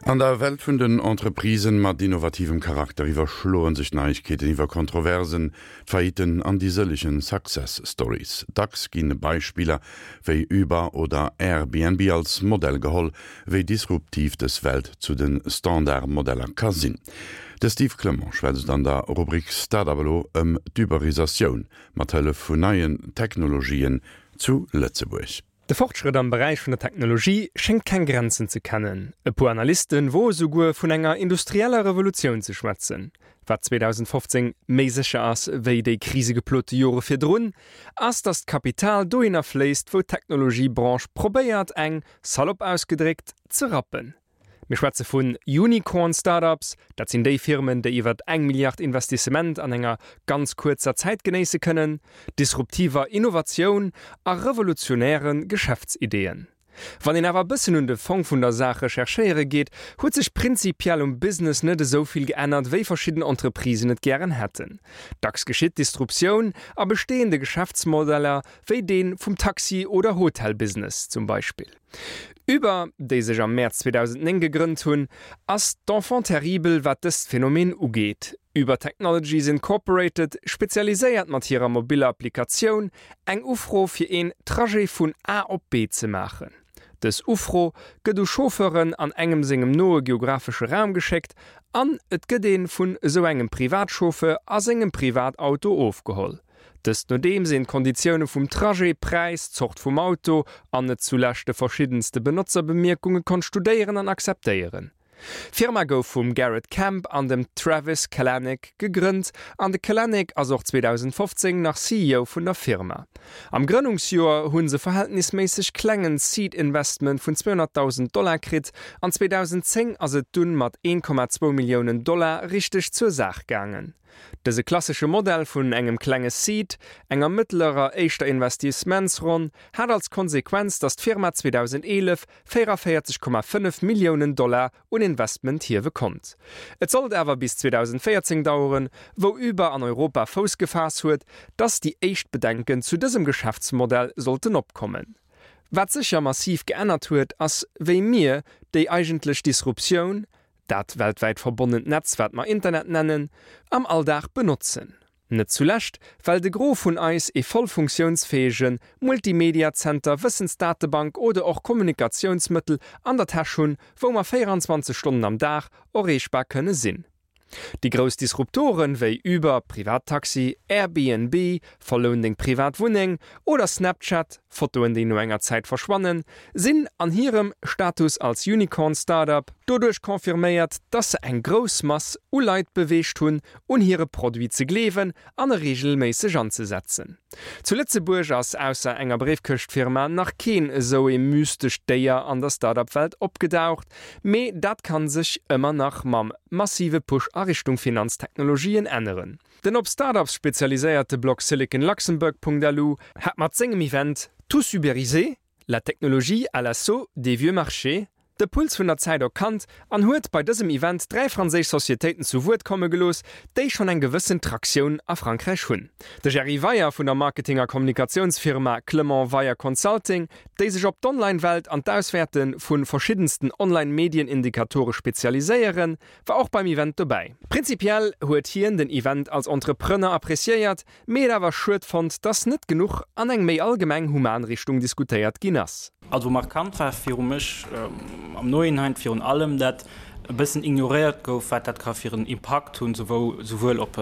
An der Welt vun den Entreprisen mat innovativem Charakter iwwerschloen sech d'Neiegkeeten iwwer Kontroversen, d'Faillitten an déi sëllegen Success Stories. Dacks ginn Beispiller wéi Uber oder Airbnb als Modell geholl, wéi disruptiv dës Welt zu de Standardmodeller ka sinn. De Steve Clement schwätzt an der Rubrik Start-up elo ëm d'Uberisatioun mat Hëllef vun neien Technologien zu Lëtzebuerg. De Fortschrëtt am Beräich vun der Technologie schéngt keng Grenzen ze kennen. E puer Analyste woe souguer vun enger industrieller Revolutioun ze schwätzen. Wat 2015 méi sécher ass wéi déi krisegeplote Jore virdrun, ass datt d'Kapital dohinner fléisst, wou d'Technologiebranche probéiert eng, salopp ausgedréckt, ze rappen. Mir schwätze vun Unicorn Startups, dat sinn déi Firmen, déi iwwer eng Milliard Investissement an enger ganz kuerzer Zäit genéisse kënnen, disruptiver Innovatioun a revolutionäre Geschäftsideeën. Wann een awer e bëssen un de Fong vun der Saach recherchéiere geet, huet sech prinzipiell um Business net esou vill geännert, wéi verschidden Entreprisen et gären hätten. Dacks geschitt Disruptioun a bestehende Geschäftsmodeller, wéi dee vum Taxi oder Hotelbusiness zum Beispill. Uber, déi sech am Mäerz 2009 gegrënnt hunn, ass d'Enfant terrible wat dëst Phänomen ugeet. Uber Technologies Incorporated spezialiséiert mat hirer mobiller Applikatioun eng Ufro fir een Trajet vun A op B ze maachen. Dës Ufro gëtt u Chauffeuren an engem sengem noe geografesche Raum geschéckt an et gëtt ee vun esou engem Privatchauffeur a sengem Privatauto ofgeholl. Dëst nodeems een d'Konditioune vum Trajet, Präis, Zort vum Auto an net zulescht de verschiddenste Benotzerbemerkunge konnt studéieren an akzeptéieren. D'Firma gouf vum Garrett Camp an dem Travis Kalanick gegrënnt an de Kalanick ass och 2015 nach CEO vun der Firma. Am Grënnungsjoer hu se verhältnisméisseg klengen Seed Investment vun 200.000 Dollar kritt an 2010 ass et dunn mat 1,2 Milliounen Dollar richteg zur Saach gaangen. Dëse klassesche Modell vun engem klenge Seed, enger mëttlerer éischter Investissementsronn, hat als Konsequenz, datt d'Firma 2011 44,5 Milliounen Dollar un Investment hiewe konnt. Et sollt awer bis 2014 daueren, wou Uber an Europa Fouss gefaass huet, datt déi éischt Bedenken zu dësem Geschäftsmodell sollten opkommen. Wat sécher massiv geännert huet, ass wéi mir déi eigentlech Disruptioun, Dat weltwäit verbonnent Netz, wat mer Internet nennen, am Alldag benotzen. Net zulescht, well de Gros vun eis ee voll funktiounsfäege Multimediazenter, Wëssensdatebank oder och Kommunikatiounsmëttel an der Täsch hunn, wou mer 24 Stonnen am Dag erreechbar kënne sinn. Déi grouss Disruptoren wéi Uber, Privattaxi, Airbnb, Verloun deng privat Wunneng, oder Snapchat, Fotoen déi no enger Zäit verschwannen, sinn an hirem Status als Unicorn Startup doduerch confirméiert, dass se eng grouss Mass u Leit beweegt hunn, un hire Produit ze gleewen an e reegelméisseg anzesetzen. Zu Lëtzebuerg ass ausser enger Bréifkëschtfirma nach keen esou ee mystescht Déier an der Startup-Welt opgedaucht, mee dat kann sech ëmmer nach mam massive Push a Richtung Finanztechnologien änneren. Den op Startups spezialiséierte Blog siliconluxembourg.lu hat mat sengem Event Tous uberisés? La technologie à l'assaut des vieux marchés de Puls vun der Zäit erkannt an huet bei dësem Event 3 franséisch Societéiten zu Wuert komme gelooss, déi schonn eng gewëssen Traktioun a Frankräich hunn. De Jerry Weyer vun der Marketing a Kommunikatiounsfirma Clement Weyer Consulting, déi sech op d'Online-Welt an d'Auswäerte vu verschiddensten Online-Medien-Indikatore spezialiséieren, war och beim Event dobäi. Prinzipiell huet hien den Event als Entrepreneur appreciéiert, mee et awer schued fonnt, dass net genuch an eng méi allgemeng human Richtung diskutéiert ginn ass. Also markant war viru mech am Nohinein virun allem, dat e bëssen ignoréiert gouf, wat dat ka fir en Impakt hunn, souwuel op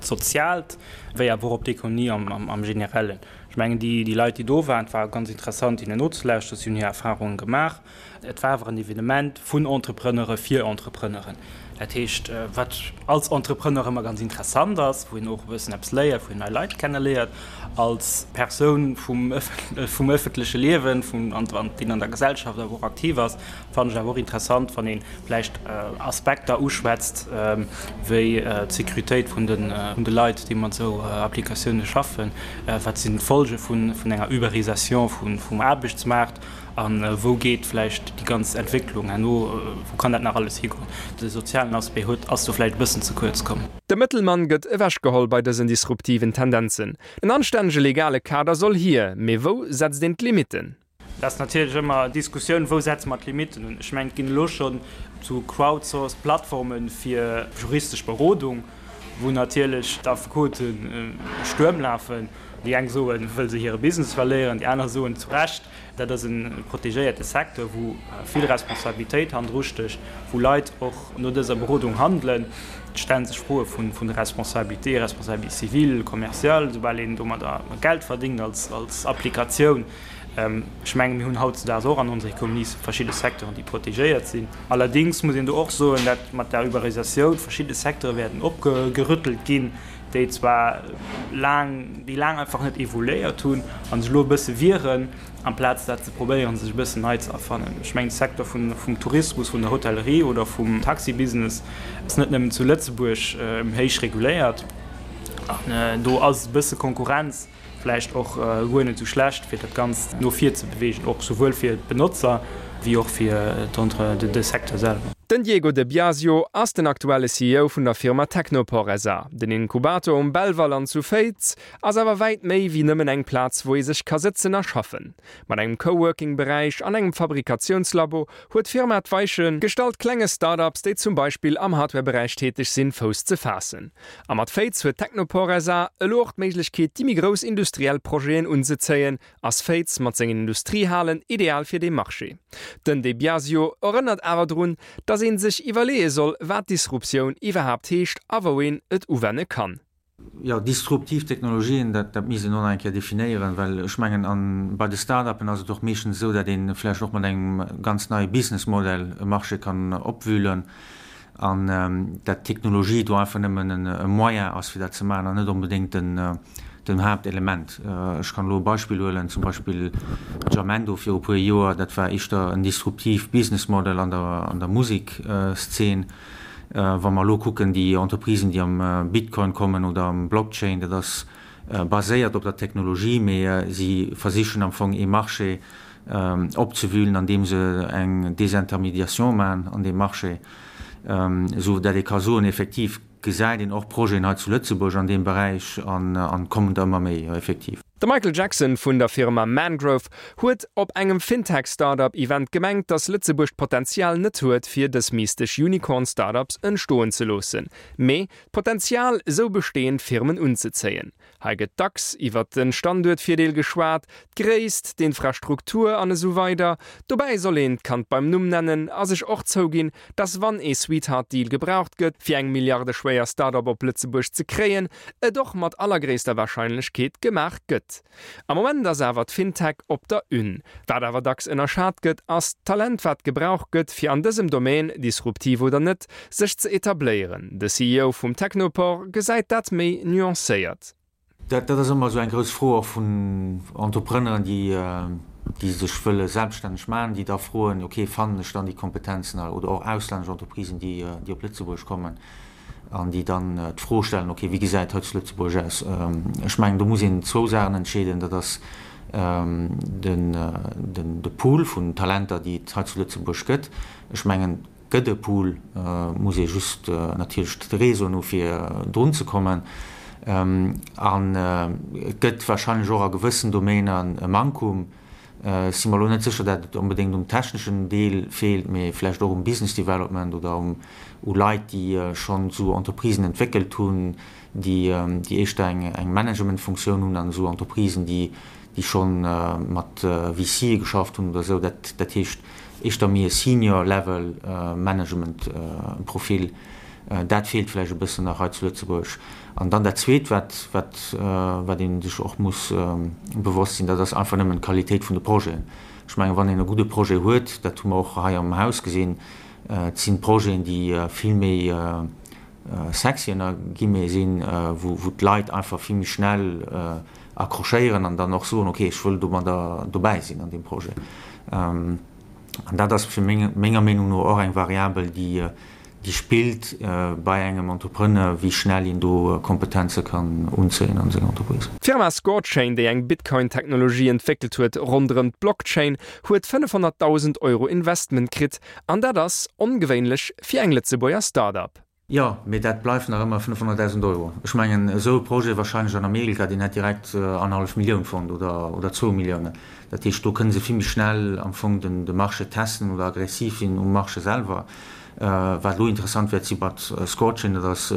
d'Soziaalt wéi awer och op d'Ekonomie am Generellen. Ech mengen, déi Leit, déi do waren, et war ganz interessant hinnen nozelauschteren, si hunn hir Erfarunge gemaach. Et war awer en Evenement vun Entrepreneure fir Entrepreneuren. Dat heescht, wat als Entrepreneur ëmmer ganz interessant ass, wou een och e bëssen eppes léiert, wou een nei Leit kenneléiert, als Persoun vum vum ëffentleche Liewen, vum an deen an der Gesellschaft awer och aktiv ass, fannen ech awer och interessant, wann ee vläicht Aspekter uschwätzt wéi d'Sécuritéit vun de vun de Leit, déi mat esou Applikatioune schaffen, wat sinn d'Folge vun vun enger Uberisation vum vum Aarbechtsmaart. A wou geet vläicht déi ganz Entwécklung herno, wou kann dat nach alles higoen? De sozialen Aspect huet, ass do vläicht e bëssen ze kuerz komm. De Mëttelmann gëtt ewechgeholl bei dësen disruptiven Tendenzen. En anstännege legale Kader soll hier, mee wou setzt een d'Limitten? Dat ass natierlech ëmmer Diskussioun, wou setze mer d'Limitten un. Ech mengen, et ginn elo schonn sou crowdsourced Plattforme fir juristesch Berodung, wou natierlech d'Affekote Stuerm lafen. Déi eng soen, wëll se hire Business verléieren, déi aner soen zu Recht, dat ass e protegéierte Secteur, wou vill Responsabilitéit hannendru stécht, wou Leit och no dëser Berodung handelen. Et stelle sech Froe vun der Responsabilité, Responsabilité civile, commerciale, soubal een domadder Geld verdéngt als Applikatioun. Ech mengen, mir hunn hautzedaags och an onser Ekonomie verschidde Secteuren, déi protegéiert sinn. Allerdéngs muss een do och soen, dat mat der Uberisatioun verschidde Secteure wäerten opgerüttelt ginn, déi zwar laang, déi laang einfach net evoluéiert hunn a sech elo e bësse wieren, amplaz dat ze probéieren, sech e bëssen nei ze erfannen. Ech mengen, de Secteur vum Tourismus, vun der Hotellerie oder vum Taxibusiness ass net nëmmen zu Lëtzebuerg héich reguléiert. An do ass e bësse Konkurrenz Vläicht och guer net esou schlecht, fir dat Ganzt no vir ze beweegen, och souwuel fir d'Benotzer wéi och fir de Secteur selwer. Den Diego De Biasio ass den aktuelle CEO vun der Firma Technopore SA. Den Inkubator um Belval an zu Féiz ass awer wäit méi wéi nëmmen eng Plaz wou ee sech ka sëtzen a schaffen. Mat engem Coworking-Beräich an engem Fabrikatiounslabo huet d'Firma d'Weiche gestallt klenge Start-ups, déi zum Beispill am Hardware-Beräich täteg sinn, Fouss ze faassen. A mat Féiz huet Technopore SA elo och d'Méiglechkeet, déi méi grouss industriell Projeten unzezéien. Ass Féiz mat sengen Industriehalen ideal fir dee Marché? Den De Biasio erënnert awer drun, datt ee sech iwwerleeë soll, wat Disruptioun iwwerhaapt heescht a wou een et uwenne kann. Jo, disruptiv Technologien, dat, dat misst een och nach eng Kéier definéieren, well ech mengen, an bei de Start-upen ass et och meeschtens esou, datt ee vläicht och mat engem ganz neie Businessmodell e Marché kann opwühlen an dat d'Technologie do einfach nëmmen e Moyen ass, fir dat ze maachen an net onbedéngt den, den Haaptelement. Ech kann elo e Beispill huelen, zum Beispill Jamendo viru puer Joer, dat war éischter en disruptiv Businessmodel an der, an der Musekszeen. Wa mer elo kucken, déi Entreprisen, déi am Bitcoin kommen oder am Blockchain, dat ass baséiert op der Technologie, mee si versichen am Fong ee Marché opzewühlen, andeem se eng Désintermédiation maachen an deem Marché, esou dat ee ka soen, effektiv gesäit een och Projeten hei zu Lëtzebuerg an deem Beräich an kommen der ëmmer méi, jo, effektiv. De Michael Jackson vun der Firma Mangrove huet op engem Fintech-Startup-Event gemengt, datt Lëtzebuerg d'Potenzial net huet, fir dës mystesch Unicorn-Startups entstoen ze loossen, mee d'Potenzial, esou bestehend Firmen unzezéien. Hei gëtt dacks iwwert de Standuertvirdeel geschwat, d'Gréisst, d'Infrastruktur an esou weider Dobäi soll een d'Kand beim Numm nennen a sech och zouginn, dass wann ee Sweetheart-Deal gebraucht gëtt, fir eng milliardeschwéier Start-up op Lëtzebuerg ze kréien, et och mat allergréisster Warscheinlechkeet gemaach gëtt. Am Moment ass awer d'FinTech op der Une. Wat awer dacks ënnerschat gëtt, ass d'Talent wat gebraucht gëtt, fir an dësem Domaine, disruptiv oder net, sech ze etabléieren. De CEO vum Technopore gesäit dat méi nuancéiert. Dat ass ëmmer esou eng grouss Fro och vun Entrepreneuren, déi, déi sech wëlle selbststänneg maachen, déi da froen, ok, fannen ech dann déi Kompetenzen hei? Oder och auslännesch Entreprisen, déi, déi op Lëtzebuerg kommen an déi dann d'Fro stellen, ok, wéi gesäit et hei zu Lëtzebuerg aus? Ech mengen, do muss een zwou Saachen entscheeden. Dat ass den, den, de Pool vun Talenter, déi et hei zu Lëtzebuerg gëtt. Ech mengen, Gëtt e Pool, muss ee just natierlech de Réseauen hu fir drun ze kommen. An et gëtt wahrscheinlech och a gewëssen Domainer e Mankum. Ech si mer elo net sécher, dat et onbedéngt um techneschen Deel feelt, mee vläicht och um Business Development oder u Leit, déi schonn esou Entreprisen entwéckelt hunn, déi éischter eng Managementfunktioun hunn an esou Entreprisen, déi scho mat VCe geschafft hunn oder esou. Dat heescht éischter méi e Senior Level Management Profil. Dat feelt vläicht e bëssen nach hei zu Lëtzebuerg. An dann dat Zweet, wat wat ee sech och muss bewosst sinn, dat ass einfach nëmmen d'Qualitéit vun de Projeten. Ech mengen, wann een e gudde Projet huet, dat hu mer och hei am Haus gesinn, et sinn Projeten, déi vill méi sexy ënner Guillemets sinn, wou d'Leit einfach vill méi schnell accrochéieren an dann och soen, ok, ech wëll domadder dobäi sinn an deem Projet. An dat ass fir meng, menger Meenung no och eng Variabel, déi, déi spillt bei engem Entrepreneur, wéi schnell een do Kompetenze kann unzéien an seng Entreprise. D'Firma Scorechain, déi eng Bitcoin-Technologie entwéckelt huet ronderëm d'Blockchain, huet 500.000 Euro Investment kritt An dat ass ongewéinlech fir eng Lëtzebuerger Start-up. Jo, mee dat bleift nach ëmmer 500.000 Euro. Ech mengen, esou e Projet wahrscheinlech an Amerika, deen hätt direkt annerhallef Millioun fonnt oder, oder zwou Milliounen. Dat heescht, do kënne se vill méi schnell am Fong den de Marché testen oder aggressiv sinn um Marché selwer. Wat elo interessant wäert si mat Scorechain, dat ass,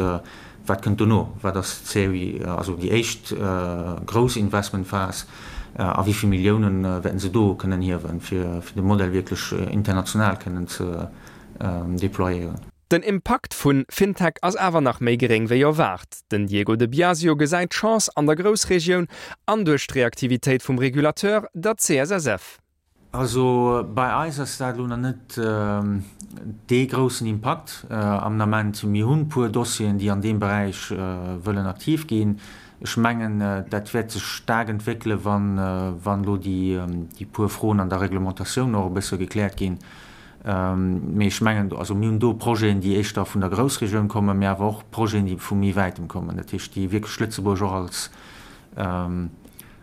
wat kënnt dono? Wat ass d'Serie, also déi éischt grouss Investmentphas a wéi vill Milliounen wäerten se do kënnen hiewen, fir de Modell wierklech international kënnen ze deployéieren? Den Impakt vun FinTech ass awer nach méi geréng wéi erwaart. Den Diego de Biasio gesäit d'Chance an der Groussregioun an duerch d'Reaktivitéit vum Regulateur, der CSSF. Also bei eis ass dat elo nach net dee groussen Impakt am Ament. Mir hunn e puer Dossieren, déi an deem Beräich wëllen aktiv ginn. Ech mengen, dat wäert sech staark entwéckelen, wann elo déi puer Froen an der Reglementatioun och e bësse gekläert ginn. Mee ech mengen, also mir hunn do Projeten, déi éischter vun der Groussregioun kommen, mee awer och Projeten, déi vu méi wäitem kommen, dat heescht, déi wierklech Lëtzebuerg och als,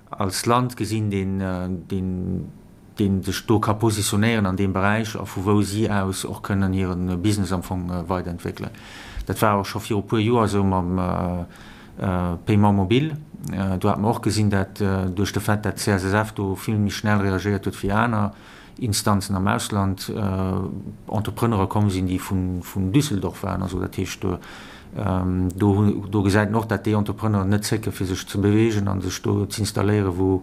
als Land gesinn, deen, deen, deen sech do ka positionéieren an deem Beräich a vu wou si aus och kënnen hire Business am Fong weiderentwéckelen. Dat war och scho viru puer Joer esou mam Paiement mobile. Do hat mer och gesinn, dat duerch de Fait, dat d'CSSF do vill méi schnell reagéiert huet wéi aner, Instanzen am Ausland, Entrepreneure komm sinn, déi vun Düsseldorf waren. Also dat heescht, do do gesäit een och, dat déi Entrepreneuren net zécke fir sech ze beweegen a sech do z'installéieren, wou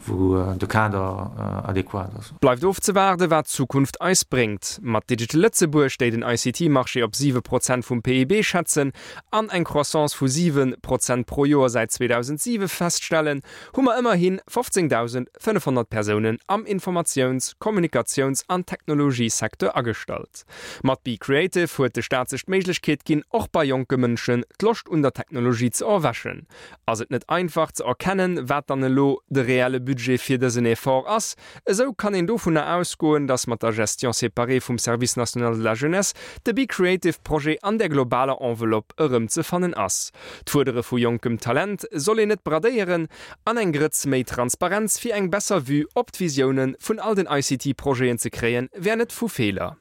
wou de Kader adequat ass. Bleift ofzewaarde wat d'Zukunft eis bréngt. Mat Digital Lëtzebuerg, déi den ICT-Marché op 7 Prozent vum PIB schätzen an eng Croissance vu 7 Prozent pro Joer säit 2007 feststellen, hu mer ëmmerhi 15.500 Persounen am Informatiouns-, Kommunikatiouns an Technologiesecteur agestallt. Mat Be Creative huet de Staat sech d'Méiglechkeet ginn, och bei jonke Mënschen d'Loscht un der Technologie ze erwächen. Ass et net einfach ze erkennen, wat dann elo de reelle Budget fir dësen Effort ass, esou kann een dovunner ausgoen, dass mat der Gestion séparée vum Service national de la jeunesse de Be Creative Projet an der globaler Enveloppe erëmzefannen ass. D'Fuerdere vu jonkem Talent soll een net bradéieren an eng Grëtz méi Transparenz fir eng besser Vue op d'Visioune vun all den ICT-Projeten ze kréien, wär net vu Feeler.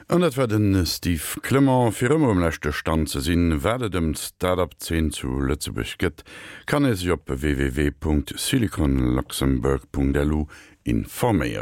An dat war de Steve Clement. Fir ëmmer um leschte Stand ze sinn, wat et ëm d'Start-up-Zeen zu Lëtzebuerg gëtt, kann ee sech op www.siliconluxembourg.lu informéieren.